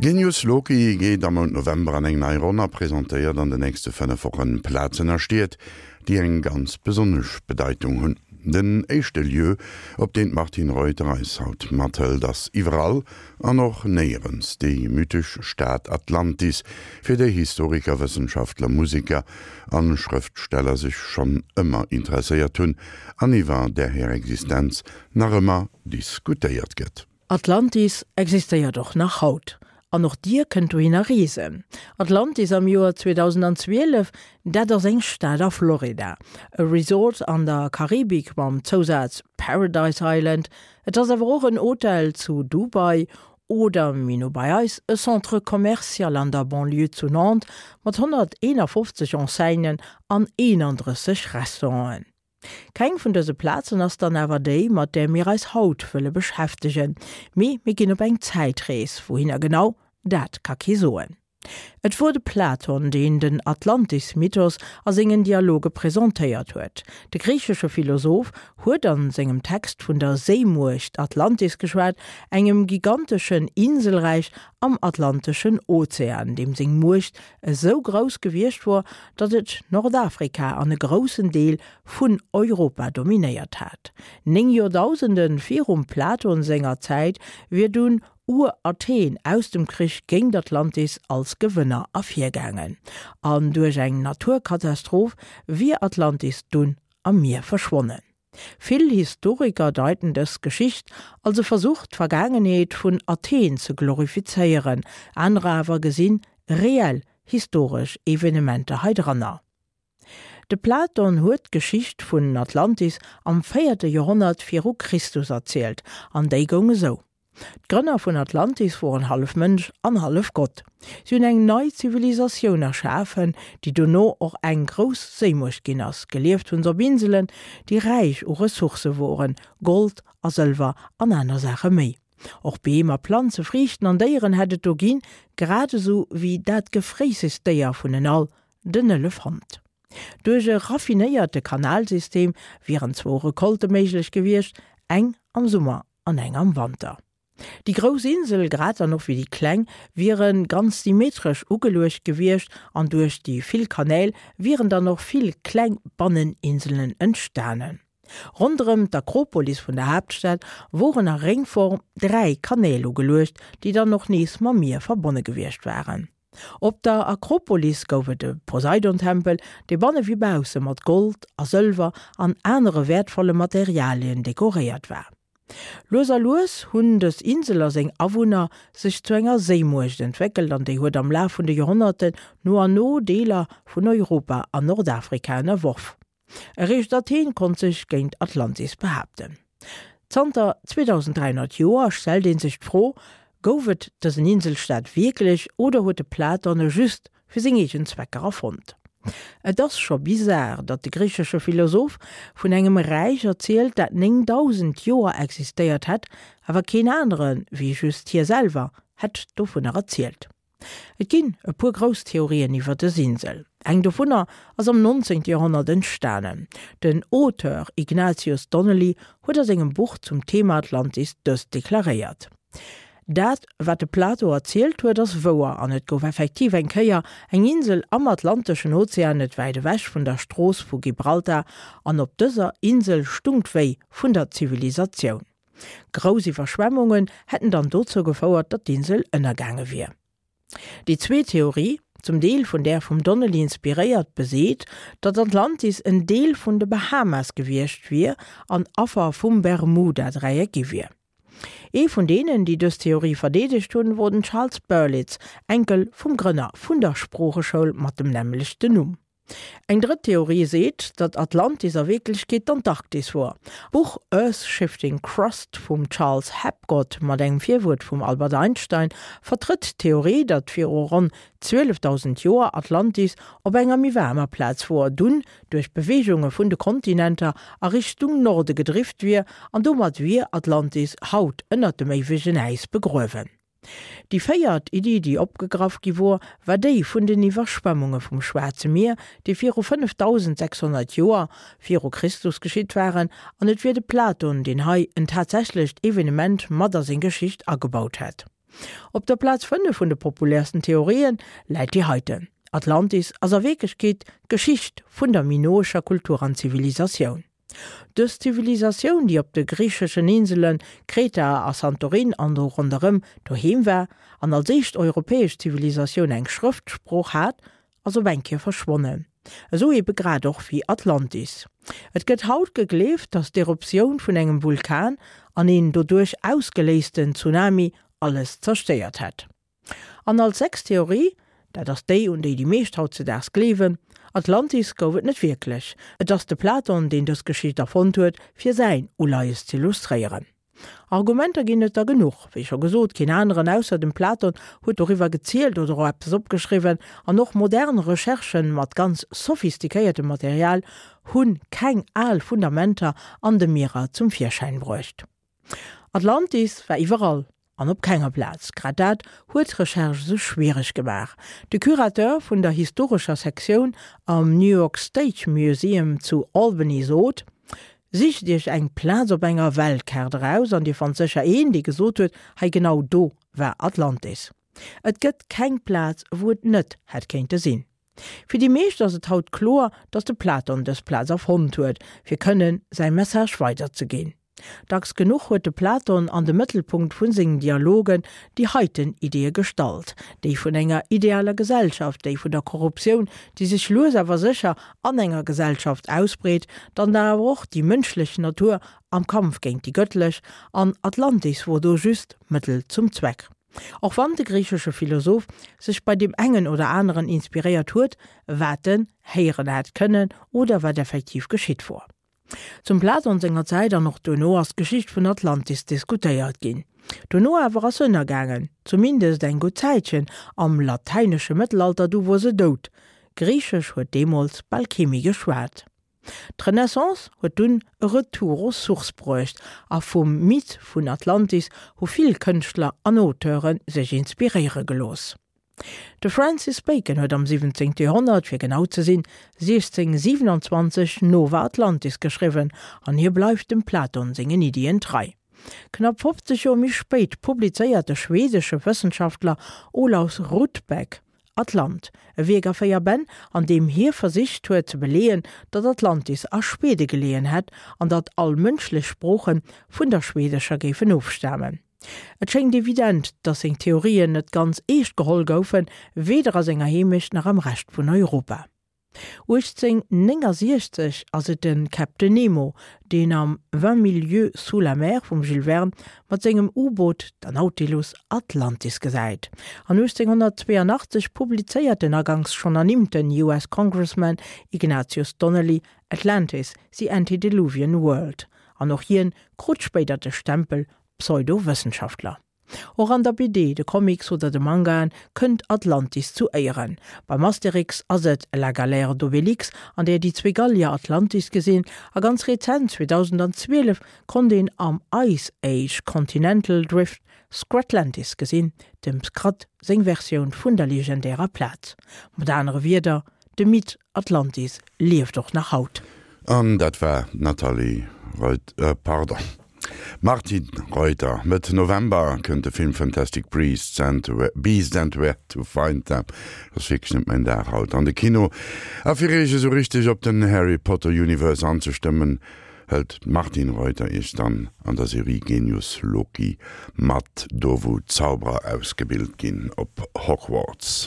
Genius Loci geet am Mount November an eng nei Ronn a presentéiert an de nächste 5 Wochen Plazen a Stied, déi eng ganz besonnesch Bedeitung hunn. Den éischte Lieu, op deen d'Martine Reuter eis haut mathëlt, ass iwwerall an och néierens déi mythesch Stad Atlantis, fir déi Historiker, Wëssenschaftler, Museker an Schrëftsteller sech schonn ëmmer interesséiert hunn an iwwer där hir Existenz nach ëmmer diskutéiert gëtt. Atlantis existéiert och nach haut. An och dir kënnt dohinner reesen. Atlantis am Joer 2012, dat ass eng Stad a Florida. E Resort an der Karibik mam Zousaz Paradise Island. Et ass awer och en Hotel zu Dubai oder, méi no bei eis, e Centre commercial an der Banlieue zu Nantes mat 151 Enseignen an 31 Restauranten. Keng vun dëse Plazen ass dann awer déi, mat där mir eis haut wëlle beschäftegen, mee mir ginn op eng Zäitrees. Wouhinner genau, dat ka kee soen. Et wor de Platon, deen den Atlantis-Mythos a sengen Dialoge presentéiert huet. De griichesche Philosoph huet an sengem Text vun der Séimuecht Atlantis geschwat, engem giganteschen Inselräich am Atlanteschen Ozean, deem seng Muecht esou grouss gewiescht wor, datt et Nordafrika an e groussen Deel vun Europa dominéiert hat. 9 Joerdausende virum Platon senger Zäit wier dunn Ur-Athen aus dem Krich géint Atlantis als Gewënner ervirgaangen, an duerch eng Naturkatastroph wier Atlantis dunn am Mier verschwonnen. Vill Historiker deiten dës Geschicht als e Versuch d'Vergaangenheet vun Athen ze glorifizéieren, anerer awer gesinn reell historesch Evenementer hei dranner. De Platon huet d'Geschicht vun Atlantis am véierte Joerhonnert viru Christus erzielt, an déi goung esou. D'Grënner vun Atlantis woren hallef Mënsch an hallef Gott. Si hunn eng nei Zivilisatioun erschafen, déi dono och eng grouss Séimuecht ginn ass. Gelieft hunn se op Inselen, déi räich u Ressourcë woren, Gold a Sëlwer an aner Saache méi. Och Beem a Planze, Friichten an Déieren hätt et do ginn, grad esou wéi dat gefréissegst Déier vun en all, den Elefant. Duerch e raffinéierte Kanalsystem wieren zwou Recolte méiglech gewiescht, eng am Summer an eng am Wanter. Déi grouss Insel, grad dann och wéi déi kleng, wiere ganz symmetresch ugeluecht gewiescht an duerch déi vill Kanäl wieren dann och vill kleng Banneninselen entstanen. Ronderëm d'Akropolis vun der Haaptstad woren a Réngform 3 Kanäl ugeluecht, déi dann och nees mam Mier verbonne gewiescht waren. Op der Akropolis gouf et e Poseidon-Tempel, dee banne wéi bausse mat Gold a Sëlwer an anere wäertvolle Materialien dekoréiert war. Lues a lues hunn dës Insel a seng Awunner sech zu enger Séimuecht entwéckelt an déi huet am Laf vun de Joerhonnerten no an no Deeler vun Europa an Nordafrika ënnerworf. Eréischt Athen konnt sech géint Atlantis behaapten. Zanter 2300 Joer stellt ee sech d'Fro, Gouf et dësen Inselstaat wierklech oder huet de Platon e just fir seng eegen Zwecker erfonnt? Et ass scho bizar, datt de griichesche Philosoph vun engem Räich erzielt, dat 9000 Joer existéiert hätt, awer keen anere wéi just hie selwer hätt dovunner erzielt. Et ginn e puer grouss Theorien iwwer dës Insel. Eng dovunner ass am 19. Joerhonnert entstanen. Den Auteur Ignatius Donnelly huet a sengem Buch zum Thema Atlantis dëst deklaréiert, Dat, wat de Plato erzielt huet, ass wouer an et gouf effektiv eng Kéier eng Insel am Atlanteschen Ozean net wäit ewech vun der Strooss vu Gibraltar an op dëser Insel stung d'Wéi vun der Zivilisatioun. Grouss Iwwerschwemmungen hätten dann dozou gefouert, datt d'Insel ënnergaange wier. Déi zweet Theorie, zum Deel vun där vum Donnelly inspiréiert, beseet, datt Atlantis en Deel vun de Bahamas gewiescht wier an Affer vum Bermuda-Dräieck gi wier. Ee vun deenen, déi dës Theorie verdeedegt hunn, wor den Charles Berlitz, Enkel vum Grënner vun der Sproocheschoul mat dem nämmlechten Numm. Eng drëtt Theorie seet, datt Atlantis a Wierklechkeet d'Antarktis wor. D'Buch Earth's Shifting Crust vum Charles Hapgood mat engem Virwuert vum Albert Einstein vertrëtt d'Theorie, datt viru ronn 12.000 Joer Atlantis op enger méi waarmer Plaz wor, dunn duerch Beweegunge vun de Kontinenter a Richtung Norde gedrift wier an domat wier Atlantis haut ënnert dem éiwegen Äis begruewen. Déi véiert Iddi, déi opgegraff gi wor, war déi vun den Iwwerschwemmunge vum Schwaarze Mier, déi viru 5600 Joer viru Christus geschitt waren, an et wier de Platon, deen hei en tatsächlecht Evenement mat a seng Geschicht agebaut hätt. Op der Plaz 5 vun de populärsten Theorien läit déi heiten, Atlantis ass a Wierklechkeet d'Geschicht vun der minoescher Kultur an Zivilisatioun. Dës Zivilisatioun, déi op de griicheschen Insele Kreta a Santorin an do ronderëm doheem war an als éischt europäesch Zivilisatioun eng Schrëftsprooch hat, ass op eng Kéier verschwonnen. Esou ebe grad och wéi Atlantis. Et gëtt haut gegleeft, datt d'Eruptioun vun engem Vulkan an een doduerch ausgeléisten Tsunami alles zerstéiert hätt. An als sechst Theorie, dat ass déi, un déi déi meescht hautzedaags gleewen, Atlantis gouf et net wierklech. Et ass de Platon, deen dës Geschicht erfonnt huet, fir säin Uleies z'illustréieren. Argumenter ginn et der genuch. Wéi scho gesot, keen aneren ausser dem Platon huet doriwwer gezielt oder och eppes opgeschriwwen, an och modern Recherchen mat ganz sophistiquéiertem Material hu keng al Fundamenter an de Mierer zum Virschäin bruecht. Atlantis war iwwerall an op kenger Plaz. Grad dat huet d'Recherche esou schwiereg gemaach. De Curateur vun der historescher Sektioun am New York State Museum zu Albany sot, Sicht Iech eng Plaz op enger Weltkaart eraus an Dir fannt sécher een, dee gesot huet, hei genau do war Atlantis. Et gëtt keng Plaz, wou et net hätt kéinte sinn. Fir déi meescht ass et haut kloer, datt de Platon dës Plaz erfonnt huet, fir kënnen säi Message weiderzeginn. Dacks genuch huet de Platon an de Mëttelpunkt vu sengen Dialogen déi heiten Ideeë gestallt, déi vun enger idealer Gesellschaft, déi vun der Korruptioun, déi sech lues awer sécher an enger Gesellschaft ausbreet, dann awer och déi mënschlech Natur am Kampf géint déi gëttlech, an Atlantis wor do just Mëttel zum Zweck. Och wann de griichesche Philosoph sech bei deem engen oder aneren inspiréiert huet, wat en héieren hätt kënnen oder wat effektiv geschitt wor. Zum Platon senger Zäit an och duerno ass d'Geschicht vun Atlantis diskutéiert ginn. Duerno awer ass se ënnergaangen, zumindest eng gutt Zäitchen, am latäinesche Mëttelalter, du wor se dout. Griichesch huet deemools bal kee méi geschwat. D'Renaissance huet dunn e Retour aux sources bruecht a vum Mythe vun Atlantis hu vill Kënschtler an Auteure sech inspiréiere gelooss. De Francis Bacon huet am 17. Joerhonnert, fir genau ze sinn 1627, Nova Atlantis geschriwwen an hie bleift dem Platon sengen Iddien trei. Knapp 50 Joer méi spéit publizéiert de schwedesche Wëssenschaftler Olaus Rudbeck Atlant, e Wierk a 4 Bänn, an deem hie versicht huet ze beleeën, datt Atlantis a Schwede geleeën hätt an datt all mënschlech Sprooche vun der schwedescher géifen ofstamen. Et schéngt evident, datt seng Theorien net ganz eescht geholl goufen, weder a senger Heemecht nach am Rescht vun Europa. 1869 ass et de Captain Nemo, deen am Vingt mille lieues sous la mer vum Jules Verne mat sengem U-Boot, der Nautilus, Atlantis gesäit. An 1882 publizéiert den aganks schonn ernimmten US Congressman Ignatius Donnelly Atlantis, The Antediluvian World. An och hien krut spéider de Stempel Pseudowëssenschaftler. Och an der BD, de Comics oder de Mangaen kënnt Atlantis zu Éieren. Beim Asterix ass et La galère d'Obélix, an där déi zwee Gallier Atlantis gesinn, a ganz rezent, 2012, konnt een am Ice Age Continental Drift Scratlantis gesinn, dem Scrat seng Versioun vun der legendärer Plaz. Mat anere Wierder, De Mythe Atlantis lieft och nach haut. An dat war d'Nathalie Reuter, pardon, Martine Reuter. Mëtt November kënnt de Film Fantastic Beasts and Beasts and Where to Find Them, dat ass wierklech net mäin Dag haut, an de Kino. A fir iech esou richteg op den Harry Potter Universe anzestëmmen, hëlt d'Martine Reuter iech dann an der Serie Genius Loki mat, do wou d'Zauberer ausgebilt ginn op Hogwarts.